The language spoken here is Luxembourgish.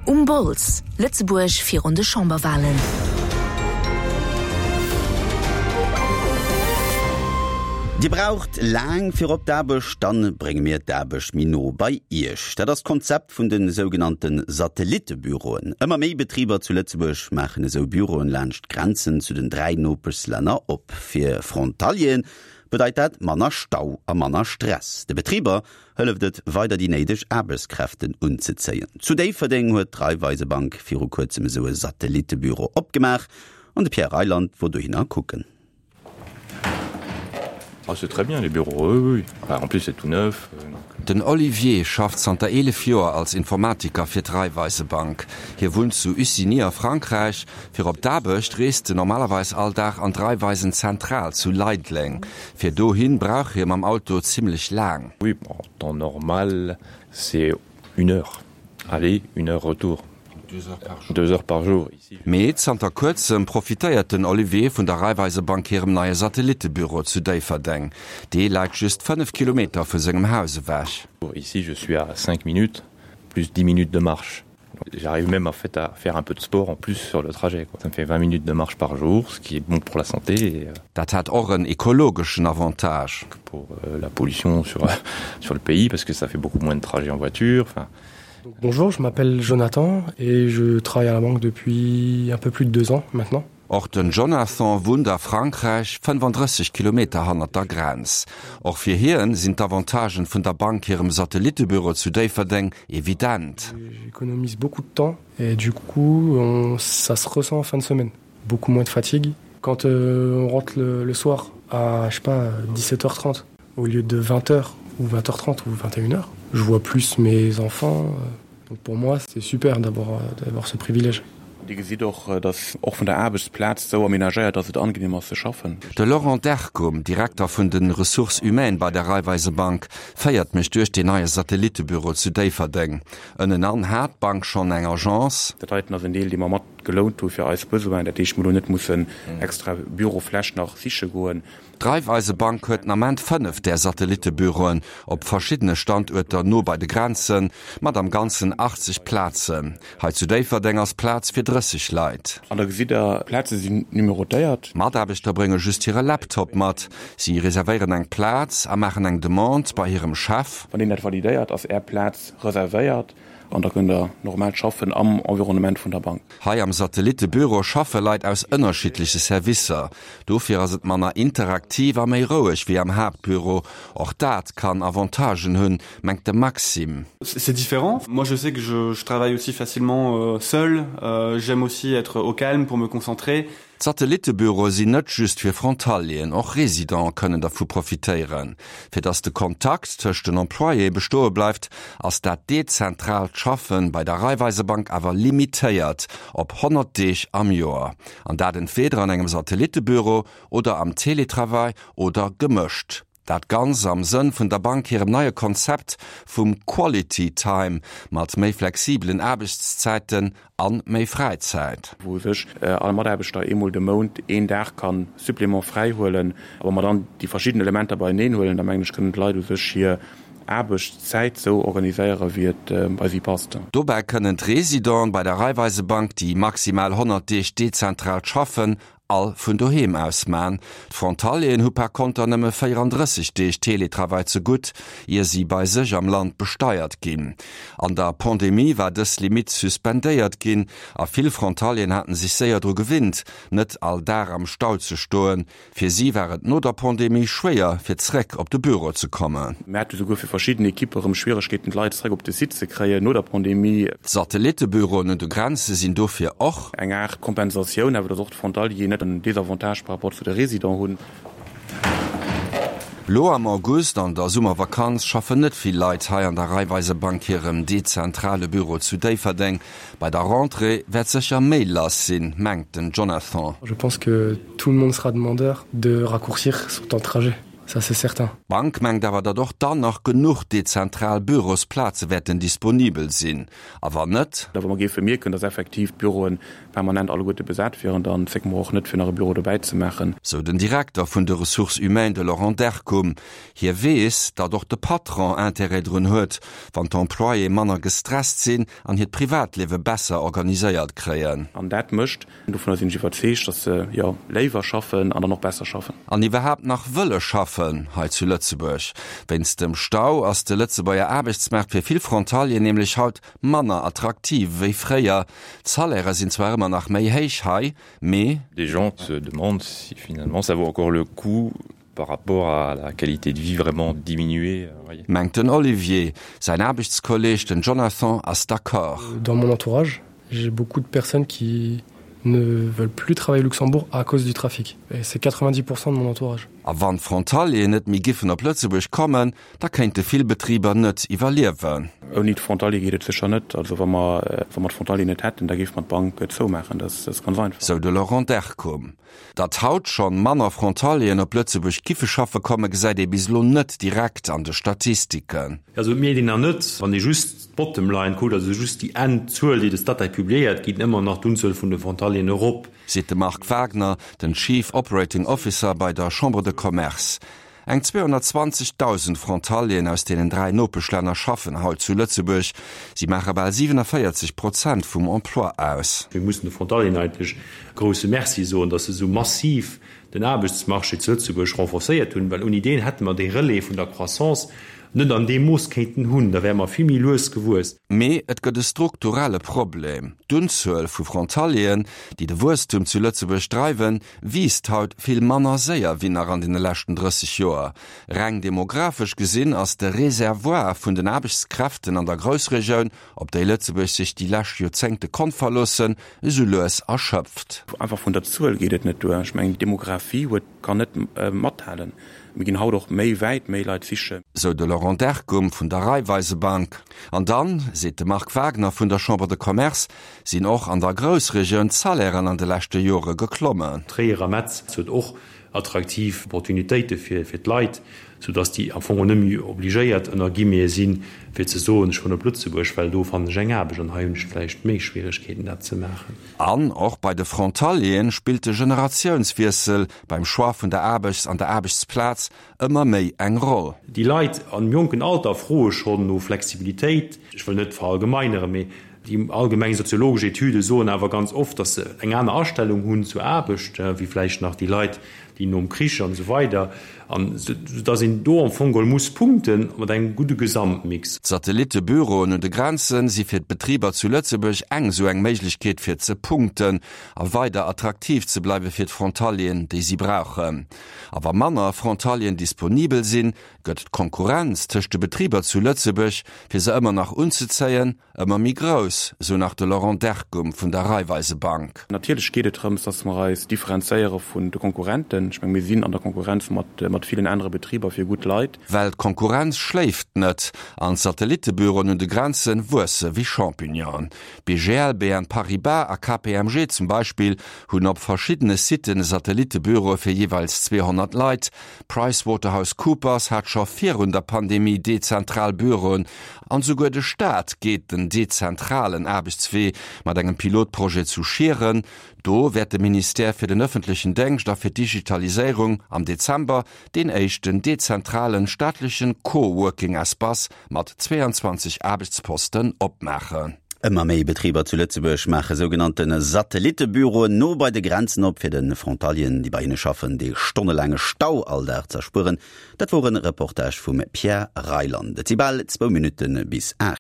Um Bols, Lëtzebuerg virun de Chamberwalen. Dir braucht laang fir op d'Aarbecht? Dann brénge mir d'Aarbecht méi no bei Iech. Dat ass d'Konzept vun de sougenannte Satellittebüroen. Ëmmer méi Betriber zu Lëtzebuerg maachen esou Büroen laanscht d'Grenzen zu den 3 Nopeschlänner op. Fir Frontalieren bedeit dat manner Stau a manner Stress. De Betriber hëlleft et weider déi néideg Aarbechtskräften unzezéien. Zu Déifferdeng huet d'Raiffeisebank viru kuerzem esou e Satellittebüro opgemaach an de Pierre Reyland wor dohinner kucken. Ah c'est très bien les bureaux, oui oui, enfin en plus c'est tout neuf donc. Den Olivier schafft zanter 11 Joer als Informatiker fir d'Raiffeisebank. Hie wunnt zu Ussigny a Frankräich. Fir op d'Aarbecht reest en normalerweis all Dag an d'Raiffeisen-Zentral zu Leideleng. Fir dohin brauch hie mam Auto zimmlech laang. Oui, en temps normal c'est une heure aller, une heure retour, deux heures par jour ici. Mee zanter kuerzem profitéiert den Olivier vun der Raiffeisebank hirem neie Satellittebüro zu Déifferdeng. Dee läit just 5 Kilometer vu sengem Haus ewech. Ici je suis à 5 minutes plus 10 minutes de marche. J'arrive même en fait à faire un peu de sport en plus sur le trajet quoi. Ça me fait 20 minutes de marche par jour, ce qui est bon pour la santé et Dat hätt och en ekologeschen Avantage. Pour la pollution sur sur le pays parce que ça fait beaucoup moins de trajets en voiture, enfin. Bonjour, je m'appelle Jonathan et je travaille à la banque depuis un peu plus de deux ans maintenant. Och den Jonathan wunnt a Frankräich, 35 Kilometer hannert der Grenz. Och fir hien sinn d'Avantagen vun der Bank hirem Satellittebüro zu Déifferdeng evident. J'économise beaucoup de temps et du coup on, ça se ressent en fin de semaine. Beaucoup moins de fatigue. Quand euh, on rentre le, le soir à je sais pas 17h30 au lieu de 20h ou 20h30 ou 21h, je vois plus mes enfants. Euh, donc pour moi c'est super d'avoir euh, d'avoir ce privilège. Dir gesitt och, dass och vun der Aarbechtsplaz sou aménagéiert ass, et angenehm ass ze schaffen. De Laurent Dercum, Direkter vun de Ressources humaines bei der Raiffeisebank, féiert mech duerch deen neie Satellittebüro zu Déifferdeng. Ënnenan hat d'Bank schonn eng Agence. Dat heiten ass en Deel, dee mer mat gelount hu fir eis Besoinen. Dat heescht, mer elo net mussen extra Bürofläch nach siche goen. D'Raiffeisebank huet den Ament 5 där Satellittebüroen op verschiddene Standuerter no bei de Grenzen, mat am Ganzen 80 Plazen. Hei zu Déifferdeng ass Plaz fir 30 Leit. An da gesitt der, d'Plaze sinn numerotéiert. D'Mataarbechter brénge just hire Laptop mat. Si reservéieren eng Plaz a maachen eng Demande bei hirem Chef. Wann deen dat validéiert, ass Är Plaz reservéiert an da kënnt Der normal schaffen am Environnement vun der Bank. Hei am Satellittebüro schaffe Leit aus ënnerschiddleche Servicer. Dofir ass et manner interaktiv a méi roueg wéi am Haaptbüro. Och dat kann Avantagen hunn, mengt de Maxime. C'est différent. Moi je sais que je, je travaille aussi facilement seul. J'aime aussi être au calme pour me concentrer. D'Satellittebüroe sinn net just fir Frontalieren, och Residente kënnen dervu profitéieren. Fir datt de Kontakt tëscht den Employéë bestoe bleift, ass dat dezentraalt Schaffe bei der Raiffeisebank awer limitéiert op 100 Deeg am Joer. An dat entweeder an engem Satellittebüro oder am Teletravail oder gemëscht. Dat Ganz am Sënn vun der Bank hirem neie Konzept vum Quality Time mat méi flexibelen Aarbechtszäiten an méi Fräizäit. Wou sech all Mataarbechter eemol de Mount een Dag ka Supplément fräi huelen. A wa mer dann déi verschidden Elementer beieneen huelen, da mengen ech, kënnen d'Leit u sech hir Aarbechtszäit sou organiséieren, wéi et bei si passt. Dobäi kënnen d'Residenten bei der Raiffeisebank, déi maximal 100 Deeg dezentral schaffen, all vun doheem aus man. D'Frontalieren hu par konter nëmme 34 Deeg Teletravail ze gutt, ier si bei sech am Land besteiert ginn. An der Pandemie war dës Limitt suspendéiert ginn a vill Frontalieren haten sech séier dru gewinnt, net all Dag am Stau ze stoen. Fir si war et no der Pandemie schwéier, fir zréck op de Büro ze kommen. Mir hate souguer fir verschidden Ekippe rëm Schwieregkeeten, d'Leit zréck op de Site ze kréien no der Pandemie. D'Satellittebüroen un de Grenze sinn dofir och. Eng Aart Kompensatioun, awer datt och d'Frontalier net en Désavantage par rapport zu de Résidents hunn. Lo am August, an der Summervakanz, schaffen net vill Leit hei an der Raiffeisebank hirem dezentrale Büro zu Déifferdeng. Bei der Rentrée wäert sécher méi lass sinn, mengt den Jonathan. Je pense que tout le monde sera demandeur de raccourcir son temps de trajet. Ça c'est certain. D'Bank mengt awer, datt och dann nach genuch dezentral Bürosplaze wäerten disponibel sinn. A wann net? Wa mer géife mierken, datt effektiv d'Büroe permanent alleguerte besat wieren, dann zécke mer och net, fir nach e Büro dobäi ze maachen. Sou den Direkter vun de Ressources humaines, de Laurent Derkum. Hie weess, datt och de Patron Intérêt drun huet, wann d'Employéë manner gestresst sinn an hiert Privatliewe besser organiséiert kréien. An dat mécht, dovunner sinn ech iwwerzeegt, datt se, jo, léiwer schaffen an dann och besser schaffen. An iwwerhaapt nach wëlle schaffen hei zu Lëtzebuerg. Wéinst dem Stau ass de Lëtzebuerger Aarbechtsmaart fir vill Frontalieren nämlech haut manner attraktiv wéi fréier. D'Salairë sinn zwar ëmmer nach méi héich hei, mee. Des gens se demandent si finalement ça vaut encore le coup par rapport à la qualité de vie vraiment diminuée. Mengt den Olivier. Säin Aarbechtskolleeg, den Jonathan, ass d'accord. Dans mon entourage, j'ai beaucoup de personnes qui ne veulent plus travailler au Luxembourg à cause du trafic. Et c'est 90% de mon entourage. A wann d'Frontalieren net méi giffen op Lëtzebuerg kommen, da kéinte vill Betriber net iwwerliewen. Ouni d'Frontalier geet et sécher net. Also wa mer, wa mer d'Frontalier net hätten, da géife mer d'Bank zoumaachen. Dat ass ganz einfach. Sou de Laurent Derkum. Datt haut schonn manner Frontalieren op Lëtzebuerg giffe schaffe komme gesäit ee bis elo net direkt an de Statistiken. Also et mierkt een nach net, wann ee just d'Bottom line kuckt, also just déi Endzuel, déi de Statec publiéiert, geet ëmmer nach d'Unzuel vun de Frontalieren erop. Seet de Marc Wagner, den Chief Operating Officer bei der Chambre de Commerce. Eng 220.000 Frontalieren aus deenen 3 Nopeschlänner schaffen haut zu Lëtzebuerg. Si maache bal 47 Prozent vum Emploi aus. Mir mussen de Frontalieren eigentlech e grousse Merci soen, datt se esou massiv den Aarbechtsmarché zu Lëtzebuerg renforcéiert hunn, well ouni deen hätte mer dee Relais vun der Croissance net an deem Mooss kéinten hunn, da wäre mer vill méi lues gewuess. Mee et gëtt e strukturelle Problem, D'Unzuel vu Frontalieren, déi de Wuesstum zu Lëtzebuerg dreiwen, wiisst haut vill manner séier wéi nach an deene leschten 30 Joer. Reng demographesch gesinn ass de Reservoir vun den Aarbechtskräften an der Groussregioun, op déi Lëtzebuerg sech déi lescht Joerzéngte konnt verloossen, esou lues erschöpft. Einfach vun der Zuel geet et net duer. Ech mengen, d'Demographie huet, kann net mathalen. Mir ginn haut och méi wäit méi Leit sichen. Sou de Laurent Derkum vun der Raiffeisebank. An dann, seet de Marc Wagner vun der Chambre de Commerce, sinn och an der Groussregioun d'Salairen an de leschte Jore geklommen. Tréier a Metz huet och attraktiv Opportunitéite fir d'Leit, soudass déi am Fong och net méi obligéiert, ënner Guillemeten, sinn, fir ze soen, ech kommen op Lëtzebuerg, well do fannen ech eng Aarbecht an hei hunn ech vläicht méi Schwieregkeeten, dat ze maachen. An och bei de Frontalieren spillt de Generatiounswiessel beim Choix vun der Aarbechts an der Aarbechtsplaz ëmmer méi eng Roll. Déi Leit am jonken Alter froe schonn no Flexibilitéit. Ech wëll net verallgemeineren, mee Déi allgemeng soziologesch Etüde soen awer ganz oft, datt se eng aner Astellung hunn zur Aarbecht wéi vläicht nach déi Leit, déi nom Krich an esou weider, an soudatt een do am Fong geholl muss punkte mat engem gudde Gesamtmix. D'Satellittebüroen un de Grenze si fir d'Betriber zu Lëtzebuerg eng esou eng Méiglechkeet fir ze punkten a weider attraktiv ze bleiwe fir d'Frontalieren, déi si brauchen. A wa manner Frontalieren disponibel sinn, gëtt d'Konkurrenz tëscht de Betriber zu Lëtzebuerg, fir se ëmmer nach unzezéien, Ëmmer méi grouss, sou nach de Laurent Derkum vun der Raiffeisebank. Natierlech geet et drëms, dass mer eis differenzéiere vun de Konkurrenten. Ech menge mir sinn an der Konkurrenz mat mat villen anere Betriber fir gutt Leit. Well d'Konkurrenz schléift net an d'Satellitebüroen un de Grenze wuesse wéi Champignonen. BGL, BN Paribas a KPMG zum Beispill hunn op verschiddene Siten Satellitebüroe fir jeeweils 200 Leit. PricewaterhouseCoopers hat scho virun der Pandemie dezentral Büroen An souguer de Staat geet den dezentralen Aarbechtswee mat engem Pilotprojet zu Schieren. Do wäert de Ministère fir den ëffentlechen Déngscht a fir d'Digitaliséierung am Dezember deen éischten dezentralen staatlechen Co-Working-Espace mat 22 Aarbechtsposten opmaachen. Ëmmer méi Betriber zu Lëtzebuerg maache sougenannte Satellittebüroen no bei de Grenzen op, fir de Frontalieren, déi bei hinne schaffen, dee stonnelaange Stau all Dag z'erspueren. Dat wor en Reportage vum Pierre Reyland. Et si bal zwou Minutte bis 8.